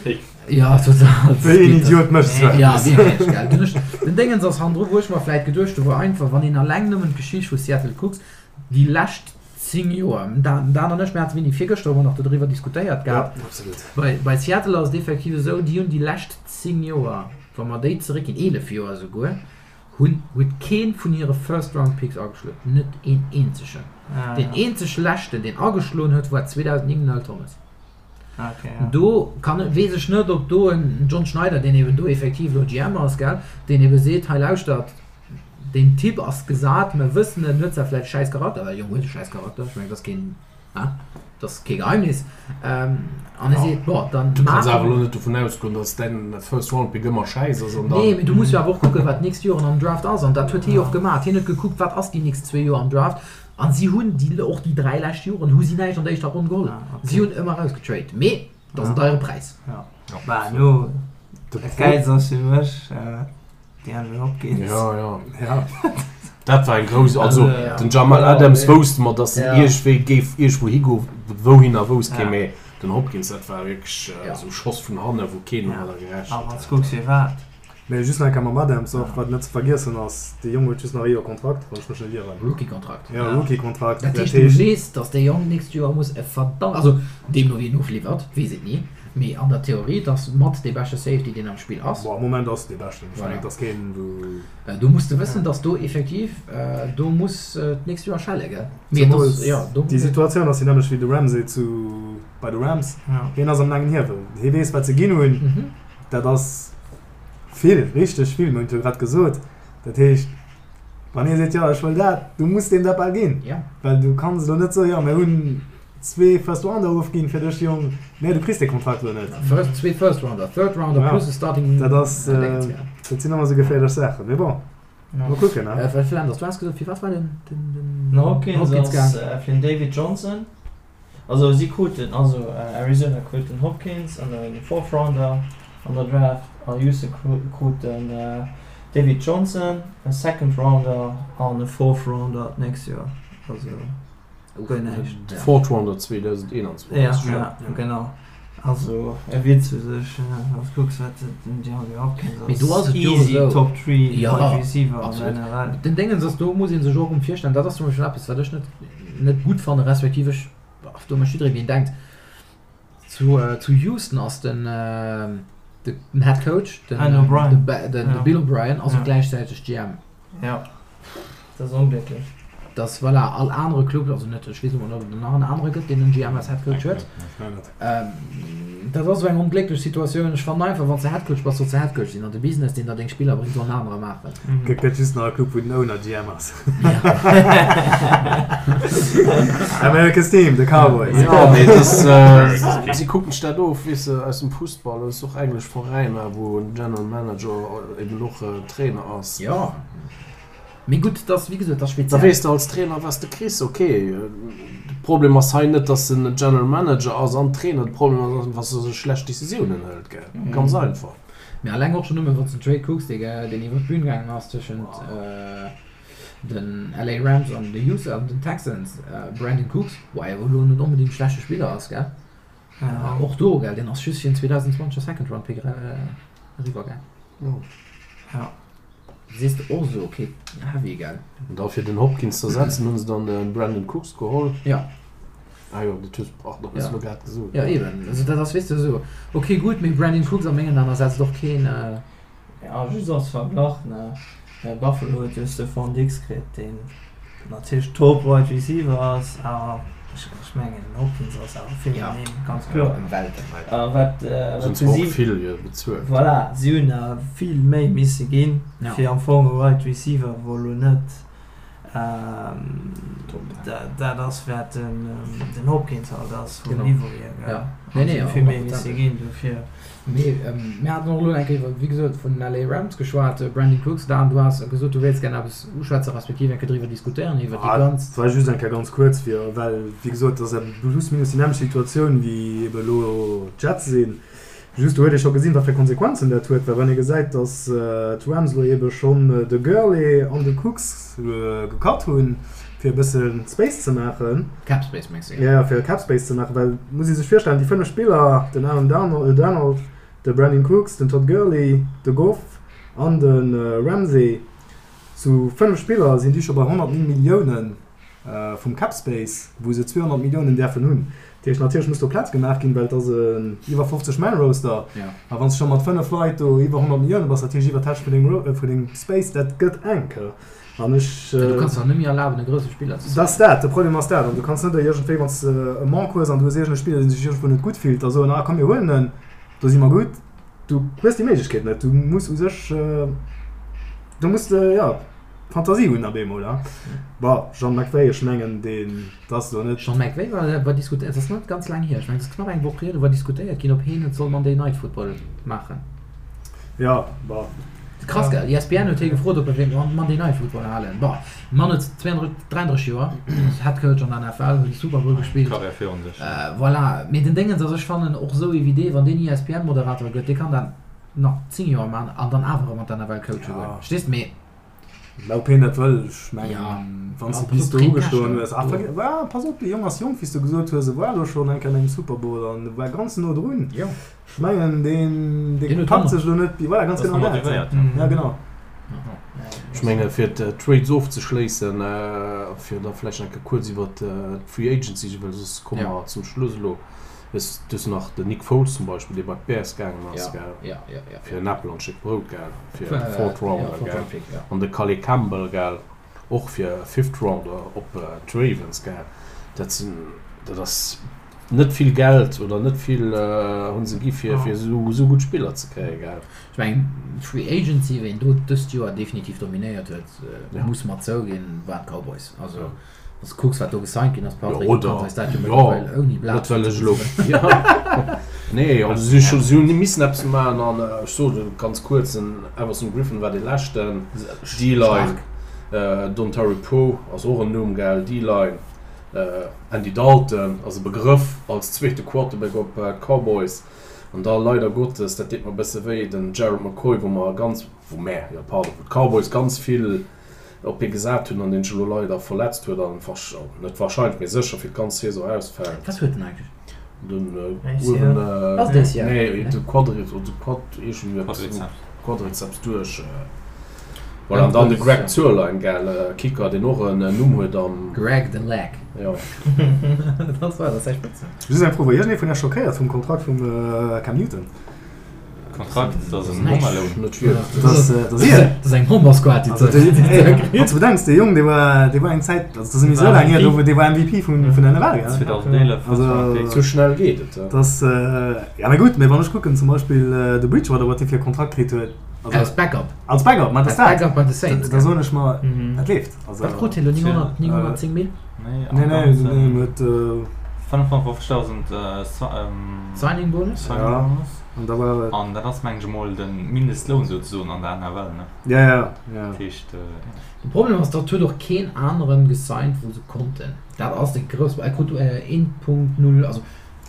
Speaker 2: Fake.
Speaker 1: Jo, total.
Speaker 2: Wéi een Idiot mécht esou
Speaker 1: eppes? Ja, wierklech, gell. Dunn ech, den Déngens ass hannendru, wou ech mer vläit geduecht hu wou einfach, wann een alleng nëmmen d'Geschicht vu Seattle kucks, déi lescht 10 Joer, den Dan an ech, mir hate wéini, virgëschter hu mer nach dodriwwer diskutéiert gehat,
Speaker 2: Ja, absolut.
Speaker 1: bei, bei Seattle ass et effektiv esou, déi hunn déi lescht 10 Joer, wa mer déi zeréckginn, 11 Joer esouguer, Hunn huet keen vun hire First Round Picks ageschloen, net een eenzegen. Deen eenzeg leschten deen ageschloen huet war 2009 den Earl Thomas. Do kann weess ech net ob do en John Schneider, deen eben do effektiv elo GM ass, gell, deen ebe seet, hei lauschtert, deen Typ ass gesat, mer wëssen en huet zwar vläicht e schäiss Charakter, well de Jong huet e schäiss Charakter, ech mengen dat ass keen. Dat ass kee Geheimnis. An e seet, bon, dann
Speaker 5: Du kanns awer elo net dovun ausgoen, datt däin First Round Pick ëmmer schäiss ass an dann.
Speaker 1: Nee, mee du muss jo awer och kucken, wat d'nächst Joren am Draft ass. An dat huet hie jo och gemaach. Hien huet gekuckt, wat ass déi nächst zwee Joer am Draft. An si hunn déi, och déi 3 lescht Joren hu si näischt an der éischter Ronn geholl. Si hunn ëmmer erausgetrade. Mee dat ass en deiere Präis.
Speaker 4: Bah, elo, dat Gäilst ass fir mech, DeAndre Hopkins.
Speaker 5: Ja, ja. ja. Dat war eng grouss, also den Jamal Adams wousste mer, datt en iergendwéi géif iergendwou higo, wouhinner wousst kee, mee den Hopkins, dat war wierklech esou e Schoss vun hanne wou keen domadder gerechent
Speaker 4: hat. A wann s kucks firwat.
Speaker 2: Mee just nach eng Kéier mam Adams och, wat net ze vergiessen ass, dee Jong huet just nach e Joer Kontrakt, wann ech mech net ieren.
Speaker 1: Rookie-Kontrakt.
Speaker 2: Ja, Rookie-Kontrakt.
Speaker 1: Dat heescht, du weess, datt dee Jong d'nächst Joer muss e verdammt, also deemno wéi en ofliwwert, weess et ni, Mee an der Theorie, et ass mat dee beschte Safety, deen am Spill ass.
Speaker 2: Bon, am Moment ass et dee beschten. Ech mengen, et ass keen, wou.
Speaker 1: Do muss de wëssen, dass do effektiv, do muss d'nächst Joer schelle, gell?
Speaker 2: Mee et ass, jo, do. Déi Situatioun ass déi nämmlecht wéi de Ramsey zu, bei de Rams. Hien ass am laangen Hiewel. Hie weess, wat se ginn hunn. Dat ass vill, richteg vill. Mir hunn et jo grad gesot. Dat heescht, wann hie seet, jo, ech wëll dat, du muss deem dat bal ginn. Well du kanns elo net soen, jo, mir hunn. Zwee First Rounder ofginn fir dech Jong, nee du kriss dee Kontrakt lo net.
Speaker 1: First, zwee First Rounder, Third Rounder ja. plus e Starting.
Speaker 2: Dat ass, äh, dat sinn ëmmer sou geféierlech Saachen, mee bon,
Speaker 1: mol kucken ne. Äh, Flanders, du has gesot, fir wat war den, den,
Speaker 4: den Den Hopkins, Hopkins ass äh, fir den David Johnson. Also si kruten, also äh, Arizona krut den Hopkins an den Fourth Rounder an der Draft a Houston krut den äh, David Johnson, e Second Rounder an e Fourth Rounder d'nächst Joer. Also.
Speaker 5: Guer näischt. De Fourth Rounder 2021.
Speaker 4: Ja, ja, genau. Also e Witz u sech, wann s kucks wat den DeAndre Hopkins
Speaker 1: ass. Mee do ass et jo
Speaker 4: easy esou. Top 3 Wide Receiver an der
Speaker 1: NFL. Den Déngens ass, do muss ee sech och erëm virstellen, dat ass zum Beispill eppes wat ech net net gutt fannen, respektiv ech, do mécht jidderee wéi en denkt. Zu zu Houston ass den den Head Coach, den den Bill O'Brien ass och gläichzäiteg GM.
Speaker 4: Ja, dat ass onglécklech.
Speaker 1: Dass voilà, all anere Club, also net, ech weess elo net, ob et nach en anere gëtt, deen en GM als Head Coach huet. Dat ass esou eng onglécklech Situatioun. Ech fannen einfach, wann s de Head Coach bass, solls de Head Coach sinn an de Business, deen der deng Spiller bréngt, soll en anere maachen.
Speaker 2: Gëtt gëtt just nach e Club, wou den Owner GM ass. America's Team, de Cowboys.
Speaker 5: Jo, mee et ass, si kucken sech dat of, weess de, aus dem Fussball. Et ass och englesch Veräiner, wou en General Manager eben och Trainer ass.
Speaker 1: Jo, mee gutt, dat ass, wéi gesot, dat ass
Speaker 5: Da speziell. weess de als Trainer, wat s de kriss. Ok, de Problem ass hei net, datt en General Manager ass an Trainer. De Problem ass einfach, datt e schlecht Decisiounen hëlt, gell? Ganz einfach.
Speaker 1: Mee alleng och schonn nëmme, wann s de den Trade kucks, dee deen iwwer d'Bün gaangen ass tëschent den LA Rams an de Houston an den Texans, Brandon Cooks, wou awer elo net onbedéngt e schlechte Spiller ass, gell? Och do, gell, deen ass just fir en 2020er Second Round Pick eriwwer gaang.
Speaker 4: Ja.
Speaker 1: Sees de och esou, ok, heavy, gell?
Speaker 5: An da fir den Hopkins z'ersetzen hunn se dann de Brandon Cooks geholl.
Speaker 1: Ja.
Speaker 5: Ah jo, dat hues, pardon, hues
Speaker 1: du
Speaker 5: elo grad gesot.
Speaker 1: Ja, eben. Also dat ass, weess de, esou, ok, gutt, mee Brandon Cooks a mengen Aen ersetzt och keen.
Speaker 4: Ja, just als Verglach, ne, Buffalo huet jo Stefon Diggs kritt, deen natierlech Top Wide Receiver ass, awer ech mengen den Hopkins ass awer vill méi, ganz kloer.
Speaker 3: Ëm Welten.
Speaker 4: A wat
Speaker 5: Se hunn zwar och vill bezuelt.
Speaker 4: Voilà, si hunn awer vill méi misse ginn, fir am Fong e Wide Receiver, wou elo net dat ass, wat den Hopkins halt ass vum Niveau hier, gell.
Speaker 1: Nee, nee,
Speaker 4: vill méi misse ginn dofir.
Speaker 1: Mee mir haten och elo eng Kéier, wéi gesot, vun den LA Rams geschwat. Brandin Cooks, Dan, du has gesot, du wéilts gär eppes uschwätzen, respektiv eng Kéier driwwer diskutéieren, iwwer déi ganz.
Speaker 2: Et war just eng Kéier ganz kuerz, fir, well, wéi gesot, et ass plus minus déi nämmlecht Situatioun, wéi ebe elo d'Jets sinn. Just do huet ee scho gesinn, wat fir Konsequenzen dat huet, well wann ee gesäit, datt d'Rams elo ebe schonn de Gurley an de Cooks gecut hunn, fir e bësse Space ze maachen.
Speaker 1: Cap Space mengs
Speaker 2: de? Jo, fir Cap Space ze maachen, well et muss ee sech virstellen, déi 5 Spiller, den Aaron Donald, de Brandin Cooks, den Todd Gurley, de Goff an de Ramsey, zu 5 Spiller sinn déi scho bei 109 Milliounen. vum Cap Space, wou se 200 Milliounen däerfen hunn. Dat heescht, natierlech muss do Plaz gemaach ginn, well et ass en iwwer 50 Man Roster. A wann s de scho mat 5 Leit do iwwer 100 Millioune bass, dat heescht iwwer d'Hälscht vun dengem Space, dat gëtt enk. An ech.
Speaker 1: Du kanns der net méi erlaben, e grousse Spiller
Speaker 2: ze signen. Dat ass dat, de Problem ass dat. An du kanns net iergendwéi, wann s de e Manque hues an du hues iergend e Spiller, dee sech iergendwou net gutt fillt, da soen, ah komm mir huelen en, do si mer gutt. Du hues déi Méiglechkeet net. Du muss u sech, du muss de, jo, Fantasie hunn op eemol, ha. Bon, Jean McVay, ech mengen deen, dat ass elo net.
Speaker 1: Jean McVay war, war diskutéiert, et ass net ganz laang hier, ech mengen et ass knapp eng Woch hier, do war diskutéiert ginn, ob heen et soll Monday Night Football maachen.
Speaker 2: Jo, bon.
Speaker 1: Krass, gell? ESPN huet hie gefrot, ob e wéilt Monday Night Football halen. Bon, de Mann huet 32, 33 Joer, ass Head Coach an der NFL, huet de Super Bowl gespillt.
Speaker 3: Karriär virun sech.
Speaker 1: Voilà, mee den Déngens ass, ech fannen och esou ee wéi dee, wann deen ESPN-Moderator gëtt, dee kann dat nach 10 Joer man an dann awer erëm an d'NFL coache goen. Verstees de? Mee.
Speaker 2: Mä ob hien dat wëll, ech mengen, wann s de bis do ugestoen hues, ah, ah, pass op, dee Jong ass jonk, wéi s de gesot hues, e war elo schonn eng Kéier an engem Super Bowl an e war ganz no drun. Ech mengen, deen, dee packt sech elo net, voilà, ganz genau dat. Ja, genau.
Speaker 5: Ech menge fir d'Trades ofzeschléissen, fir da vläicht nach eng Kéier kuerz iwwer d'Free Agency, well soss komme mer zum Schluss elo. Hues du nach den Nick Foles zum Beispill, dee bei d'Bears gaangen ass, gell?
Speaker 1: Ja, ja, ja.
Speaker 5: Fir en Äppel an d'Stéck Brout, gell? Fir e Fourth Rounder, gell? An de Calais Campbell, gell? Och fir e Fifth Rounder op d'Ravens, gell? Dat sinn, dat ass net vill Geld oder net vill hu se gi fir, fir esou, esou gutt Spiller ze kréien, gell?
Speaker 1: Ech mengen, d'Free Agency, ween do dëst Joer definitiv dominéiert huet, muss mer zouginn, waren d'Cowboys. Also. Wann s de kucks, wat do gesigned ginn ass, Patrick, du kanns eis dat jo mëttlerweil ouni Blat
Speaker 5: Net well ech elo, jo, nee, also si hu si hunn missen eppes maachen an ech soen et ganz kuerz, den Everson Griffen war dee leschten, D-Line, Dontari Poe ass och en Numm, gell, D-Line, Andy Dalton ass e Begrëff als zweete Quarterback op d'Cowboys an da leider Gottes, dat deet mer e bësse wéi, den Gerald McCoy, wou mer ganz, wou mär, jo pardon, wou d'Cowboys ganz vill op hie gesat hunn an deen sech elo leider verletzt huet an net warscheinlech, mee sécher fir d'ganz Saison ausfält.
Speaker 1: Wat huet en eigentlech?
Speaker 5: Den uewen, nee, de Quadri, de Quad, iergendwéi eppes, Quadrizeps duerch. Voilà, an dann de Greg Zuerlein, gell, Kicker, deen och en Numm huet am.
Speaker 1: Greg the Leg.
Speaker 5: Jo.
Speaker 1: Dat war, dat ass säi Spëtznumm.
Speaker 2: Just eng Fro, War iergendee vun iech schockéiert vum Kontrakt vum Cam Newton?
Speaker 3: Kontrakt, dat ass en Home Alone.
Speaker 1: Dat ass eng Bombersquad, déi
Speaker 2: Wann s de bedenks, dee Jong, dee war, dee war eng Zäit, also dat ass méi sou laang hier, do, dee war MVP vun, vun der NFL, gell?
Speaker 3: 2011.
Speaker 2: Also,
Speaker 5: Sou schnell geet et,
Speaker 2: dat ass, ja, mä gutt, mä wann ech kucken, zum Beispill de Bridgewater, wat dee fir e Kontrakt kritt huet,
Speaker 1: also. Als Backup.
Speaker 2: Als Backup, mä dat ass dat.
Speaker 1: Als Backup bei de Saints,
Speaker 2: gell? Da soen ech mer, dat leeft.
Speaker 1: Also. Wat krut hien elo? 900, 910 Mil?
Speaker 2: Nee, nee, nee, en huet.
Speaker 3: 55.000
Speaker 1: Signing Bonus.
Speaker 3: Signing Bonus.
Speaker 2: An da war et.
Speaker 3: An dat ass mengen ech emol de Mindestloun souzesoen an der NFL, ne?
Speaker 2: Ja, ja, ja.
Speaker 3: Dat heescht, ja.
Speaker 1: De Problem ass, datt huet och keen aneren gesigned wou se konnten. Dat ass de grousse Pro-, e krut 1.0, also.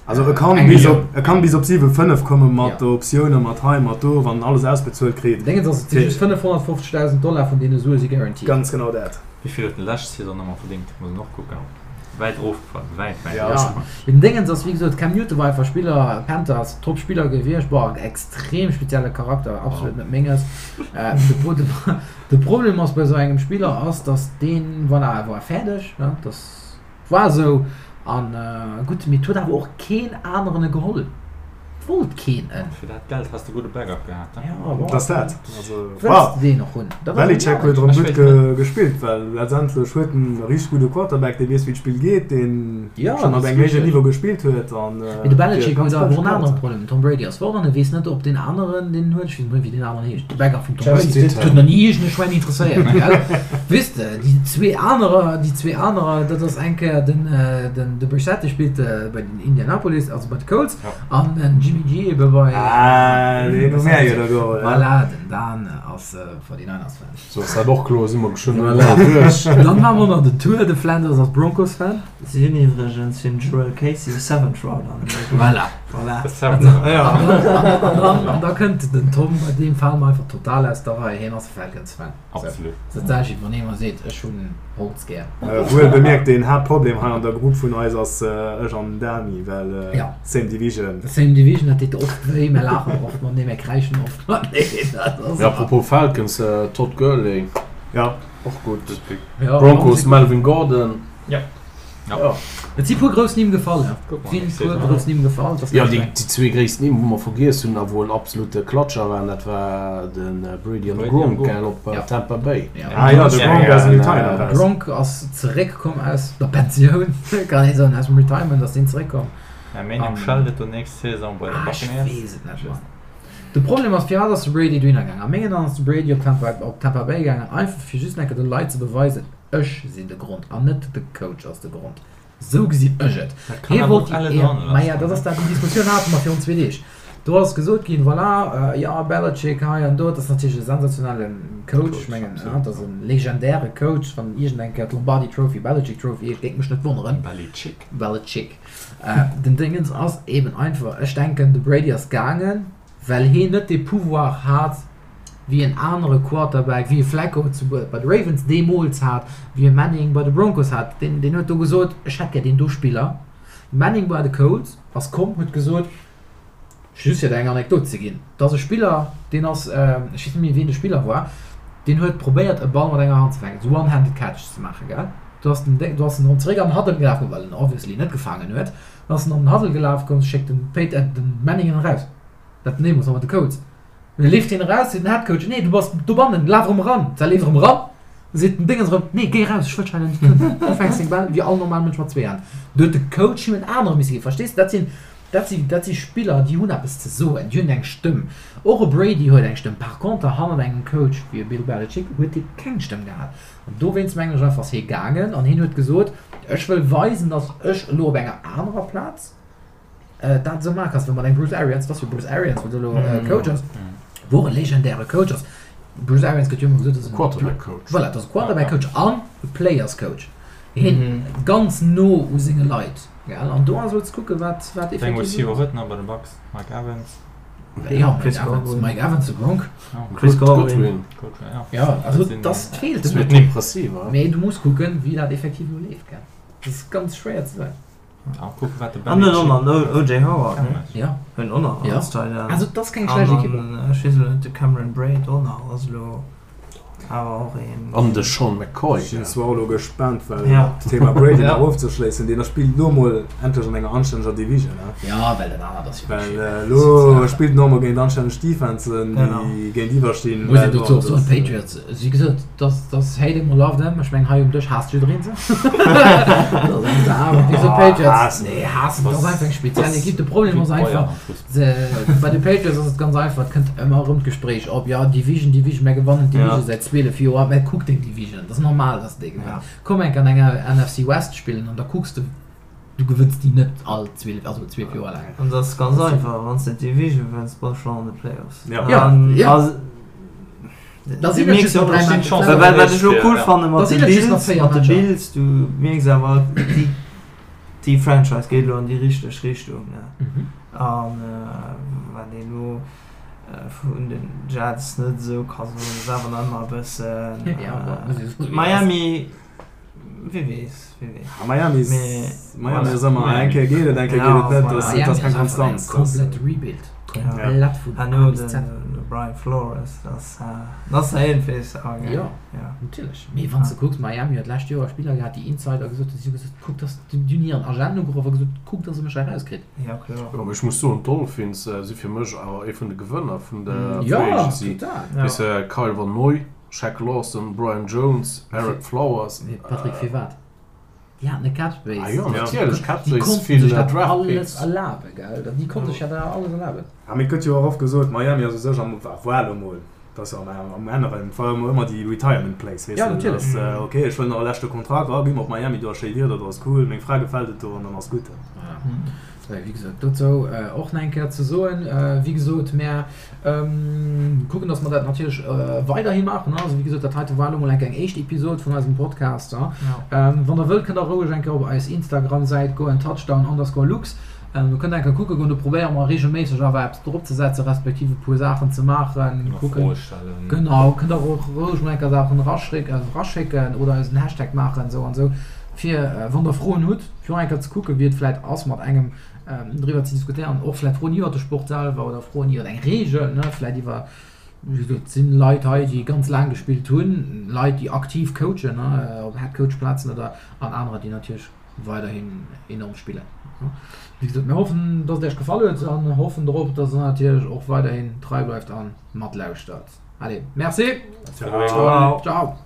Speaker 2: Also e kann bis op, e kann bis op 7,5 komme mat Optiounen, mat hei, mat do, wann en alles ausbezuelt kritt.
Speaker 1: Déngens ass, et si just 550.000 Dollar vun deene Sue si guaranteed.
Speaker 2: Ganz genau dat.
Speaker 3: Wéi vill huet en lescht Saison nochmol verdéngt? Muss een och kucken. Wäit erofgefall, wäit, wäit
Speaker 1: Ja.
Speaker 3: erofgefall.
Speaker 1: Mee den Déngens ass, wéi gesot, Cam Newton war einfach Spiller, Panthers, top Spiller gewiescht, bon, extrem spezielle Charakter, absolut net menges. De Pro, de, de Problem ass bei esou engem Spiller ass, datt deen, voilà, e war fäerdeg, ne, datt war esou. An gutt, mee et huet awer och keen aneren e geholl. Et wollt keen en.
Speaker 3: Fir dat Geld häss de gudde Backup gehat,
Speaker 1: ne? Ja, bon.
Speaker 2: Dat ass dat. Also,
Speaker 1: Wëlls de deen och hunn?
Speaker 2: Dat ass Belichick huet erëm gutt gespillt, well letztendlech huet en e richteg gudde Quarterback, dee weess, wéi d'Spill geet, deen schonn op engem héijen Niveau gespillt huet. An
Speaker 1: Mee de Belichick huet awer och en anere Problem. Den Tom Brady ass fort an e weess net, ob deen aneren, deen en huet, ech weess net méi, wéi deen aneren heescht, de Backup vum Tom Brady, dat huet nach ni iergend e Schwäin interesséiert, gell? Weess de, déi zwee anerer, déi zwee anerer, dat ass eng Kéier den, den, de Brissett, dee spillt bei den Indianapolis, also bei de Colts. An den Jimmy G ebe bei.
Speaker 2: Ah, deen hu mär jo da geholl.
Speaker 1: Voilà, den Dan ass 49ers-Fan.
Speaker 5: Sou ass dat och kloer, si mer geschwënn elo duerch.
Speaker 1: Dann maache mer nach den Tour, de Flanders ass Broncos-Fan.
Speaker 4: Si hunn iwwregens fir den Jurrell Casey e Seventh Rounder geholl.
Speaker 1: Voilà.
Speaker 4: Voilà.
Speaker 1: An da kënnt den Tom, bei deem fale mer einfach total aus der Rei, hien ass e Falcons-Fan.
Speaker 3: Absolut.
Speaker 1: Dat sag ech, wann ee mer seet, ech hunn Holz gär.
Speaker 2: Wuel bemierkt, den Haaptproblem hei an der Grupp vun eis ass ech an den Dani, well
Speaker 1: Ja.
Speaker 2: same division.
Speaker 1: Same division, dat deet oft wéi, mär laachen oft matenee, mär kräischen oft mateneen. Dat ass
Speaker 5: Ja, apropos Falcons, Todd Gurley,
Speaker 2: Ja.
Speaker 5: och gutt.
Speaker 1: Ja,
Speaker 5: Broncos, Melvin Gordon.
Speaker 3: Ja.
Speaker 1: Ja. Et si puer grouss Nimm gefall, ja. Et si puer grouss Nimm gefall.
Speaker 5: Jo, déi zwee gréisst Nimm, wou mer vergiess hunn a wou en absolute Klatscher waren, dat war de Brady an de Gronk, gell, op Tampa Bay.
Speaker 2: Ah jo, de Gronk aus dem Retirement eraus.
Speaker 1: Gronk ass zeréckkomm aus der Pensioun, kann ee soen, aus dem Retirement ass deen zeréckkomm.
Speaker 3: Mä mengem schellt et do nächst Saison bei de
Speaker 1: Ah, ech
Speaker 3: Buccaneers.
Speaker 1: weess et net, Mann. De Problem ass, firwat ass de Brady dohinner gaangen? A mengen Aen ass de Brady op Tampa, op Tampa Bay gaangen, einfach fir just eng Kéier de Leit ze beweisen, Ech sinn de Grond an net de Coach ass de Grond. Sou gesinn ech et.
Speaker 3: Dat kann
Speaker 1: Hie
Speaker 3: awer
Speaker 1: wollt
Speaker 3: och
Speaker 1: déi
Speaker 3: elle
Speaker 1: Éier.
Speaker 3: dran
Speaker 1: Maja,
Speaker 3: lassen,
Speaker 1: dat
Speaker 3: ne?
Speaker 1: ass dat, déi Diskussioun hate mer virun zwee Deeg. Do ass gesot ginn, voilà, jo, Belichick hei an do, dat ass natierlech e sensationelle Coach. Ech
Speaker 3: Coach,
Speaker 1: mengen,
Speaker 3: absolut,
Speaker 1: dat ass e legendäre Coach. Wann iergend eng Kéier d'Lombardi Trophy Belichick Trophy heescht, géing mech net wonneren.
Speaker 3: Belichick.
Speaker 1: Belichick. Den Dingens ass eben einfach, ech denken, de Brady ass gaangen, well hien net dee Pouvoir hat, wéi en anere Quarterback, wéi e Flacco zu bei de Ravens deemools hat, wéi e Manning bei de Broncos hat. Deen, deen huet do gesot, ech hätt gär deen do Spiller. De Manning bei de Colts ass komm, huet gesot, just fir der eng Anekdot ze ginn, et ass e Spiller, deen ass, ech weess net méi wien de Spiller war, deen huet probéiert e Ball mat enger Hand ze fänken, esou one-handed catch ze maachen, gell. Do ass den Déng, do ass en erëm zeréck an den Huddle gelaf komm, well en obviously net gefaangen huet. Dann ass en an den Huddle gelaf komm, schéckt den Peyt, den Manning en eraus, dat den deemools nach mat de Colts. Da leeft hien eraus, seet den Headcoach, Nee, du bass dobannen, laf erëm eran. Da leeft erëm eran, seet den Dingens erëm, Nee, géi eraus, ech wëll dech hei net hunn. Du fänks deng Bäll wéi all normal Mënsch mat zwee Hänn. Do huet de Coach him en anere misse ginn. Verstees de? Dat sinn, dat sinn, dat si Spiller, déi hunn eppes ze soen, déi hunn eng Stëmm. Och e Brady huet eng Stëmm. Par conter, hannert engem Coach wéi e Bill Belichick huet dee keng Stëmm gehat. An dowéinst mengen ech einfach, ass hie gaangen an hien huet gesot, Ech wëll weisen, datt ech elo op enger anerer Plaz, dat esou maache kanns, wéi mat engem Bruce Arians, dat ass jo Bruce Arians, wat elo Coach ass, wou och e legendäre Coach ass. Bruce Arians gëtt jo ëmmer gesot, dat ass en
Speaker 5: Quarterback Coach.
Speaker 1: Voilà, dat ass e Quarterback Coach an e Players Coach. Hien ganz no u senge Leit, gell? An do ass elo ze kucken, wat wat
Speaker 3: Deng
Speaker 1: effektiv
Speaker 3: Receiver huet nach bei de Bucks, Mike Evans.
Speaker 1: Jo, Mike Evans, Mike Evans, de Gronk.
Speaker 4: Chris Godwin.
Speaker 3: Godwin, ja.
Speaker 1: Jo, also dat feelt
Speaker 5: Dat huet en impressiv,
Speaker 1: Mee du muss kucken, wéi dat effektiv elo leeft, gell? Dat ass ganz schwéier ze soen.
Speaker 4: An den och nach OJ Howard, ne?
Speaker 1: Ja.
Speaker 4: Hunn och nach als Tight End.
Speaker 1: Also dat ass keng schlecht Ekipp.
Speaker 4: An ech weess elo net, de Cameron Brate och nach ass elo awer och een.
Speaker 5: An de Sean McCoy.
Speaker 2: Ech sinn zwar och elo gespaant, well d'Thema Brady nach ofzeschléissen, deen spillt elo mol endlech an enger anstänneger Division, ne?
Speaker 1: Ja, well dat anert ass jo
Speaker 2: Well elo spillt en och mol géint anstänneg Defensen, déi géintiwwer stinn.
Speaker 1: Muss een dozou och soen, d'Patriots Wéi gesot, dass dass hate em or love them, ech mengen hei um Dësch haasst jiddereen se. Awer wéi gesot, Patriots, nee haassen, dat ass einfach eng speziell Ekipp. De Problem ass einfach, se bei de Patriots ass et ganz einfach, et kënnt ëmmer erëm d'Gespréich op, jo Division, Division, mär gewannen d'Division säit 12 Joer, mä kuck deng Division, et ass normal, dass de déi gewënns. Komm enk an enger NFC West spillen an da kucks de, Du gewënns déi net all 12, also 12 Joer laang.
Speaker 4: An dat ass ganz einfach, wann s de d'Division wënns, bass de schonn an de Playoffs.
Speaker 2: Ja.
Speaker 1: Ja, ja.
Speaker 4: Also,
Speaker 1: Da
Speaker 4: du
Speaker 1: sinn et
Speaker 4: mierks
Speaker 1: just nach
Speaker 4: och,
Speaker 1: dräi Matcher.
Speaker 4: Well wat ech elo cool fanne
Speaker 1: Da
Speaker 4: mat de
Speaker 1: sinn et just nach
Speaker 4: Bills,
Speaker 1: véier
Speaker 4: mat de
Speaker 1: Matcher.
Speaker 4: Bills, du mierks awer, déi, déi Franchise geet elo an déi richteg Richtung, ne.
Speaker 1: Mhm.
Speaker 4: An wat een elo vun den Jets net esou ka soen, ass awer nach ëmmer e bëssen,
Speaker 1: Ja, bon, muss ee soen, wéi et ass.
Speaker 4: Miami, Wie weess, wie weess.
Speaker 2: Ah, Miami ist,
Speaker 4: Mee,
Speaker 2: Miami ass ëmmer, eng Kéier geet et, eng Kéier geet et net. Dat ass, dat ass keng Konstanz.
Speaker 1: Komplett Rebuild. Komplett vun
Speaker 4: A
Speaker 1: A
Speaker 4: no
Speaker 1: bis
Speaker 4: den
Speaker 1: Z.
Speaker 4: Brian Flores, dat ass, dat ass iergendwees awer gäil.
Speaker 1: Jo, natierlech. Mee wann s de kucks, Miami huet d'lescht Joer Spiller gehat, déi Insider gesot hunn, si hu gesot, kuck, dass déi hunn hiren Agent ugeruff a gesot, kuck, dass e mech hei erauskritt.
Speaker 4: Ja, kloer.
Speaker 5: Jo, mee ech muss soen, d'Dolphins si fir mech awer ee vun de Gewënner vun der
Speaker 1: Jo,
Speaker 5: Free Agency.
Speaker 1: total.
Speaker 5: Weess de, Kyle Van Noy, Shaq Lawson, Brian Jones, Ereck Flowers.
Speaker 1: Mee Patrick, firwat? Déi haten e Cap Space.
Speaker 5: Ah jo, natierlech, Cap
Speaker 1: Déi
Speaker 5: Space,
Speaker 1: konnten
Speaker 5: vill
Speaker 1: sech dat
Speaker 5: Draft
Speaker 1: alles
Speaker 5: Picks.
Speaker 1: erlaben, gell? Déi konnte sech dat alles erlaben.
Speaker 2: Ah, mee et gëtt jo och oft gesot, Miami ass u sech am, war elo mol, dat ass jo am, am Änneren, et war ëmmer ëmmer déi Retirement Place, weess
Speaker 1: Ja,
Speaker 2: de,
Speaker 1: natierlech.
Speaker 2: dass, ok, ech wëll nach e leschte Kontrakt, ah, gi mer op Miami, do ass schéi Wieder, do ass cool, meng Fra gefält et do an dann ass gutt.
Speaker 1: Voilà. Wéi gesot, dozou och nach eng Kéier ze soen, wéi gesot, mär kucken, dass mer dat natierlech weiderhi maachen. Also, wéi gesot, dat heite war elo mol eng Kéier eng éischt Episod vun eisem Podcast. Wann Der wëllt, kënnt Der roueg eng Kéier op eis Instagram-Säit goen, touchdown underscore lux. Do kënnt Der eng Kéier kucke goen. Do probéiere mer reegelméisseg awer eppes dropzesetzen, respektiv e puer Saachen ze maachen. Kucken.
Speaker 3: Froe stellen.
Speaker 1: Genau, kënnt Der och roueg mol eng Kéier Saachen eraschécken oder eis en Hashtag maachen, esou an esou, fir wann Der Froen hutt. Fir och eng Kéier ze kucken, wéi et vläit ass, mat engem driwwer ze diskutéieren, och vläit Froen iwwer de Sport selwer oder Froen iwwer eng Reegel, ne, vläit iwwer. Wéi gesot, et sinn Leit hei, déi ganz laang gespillt hunn, Leit, déi aktiv coachen, op Headcoach-Plazen oder an anerer, déi natierlech weiderhin enorm spillen. Wéi gesot, mir hoffen, dass et Iech gefall huet an hoffen drop, dass Der natierlech och weiderhin trei bleift a matlauschtert. Allez, merci!
Speaker 2: Ciao!
Speaker 1: Ciao!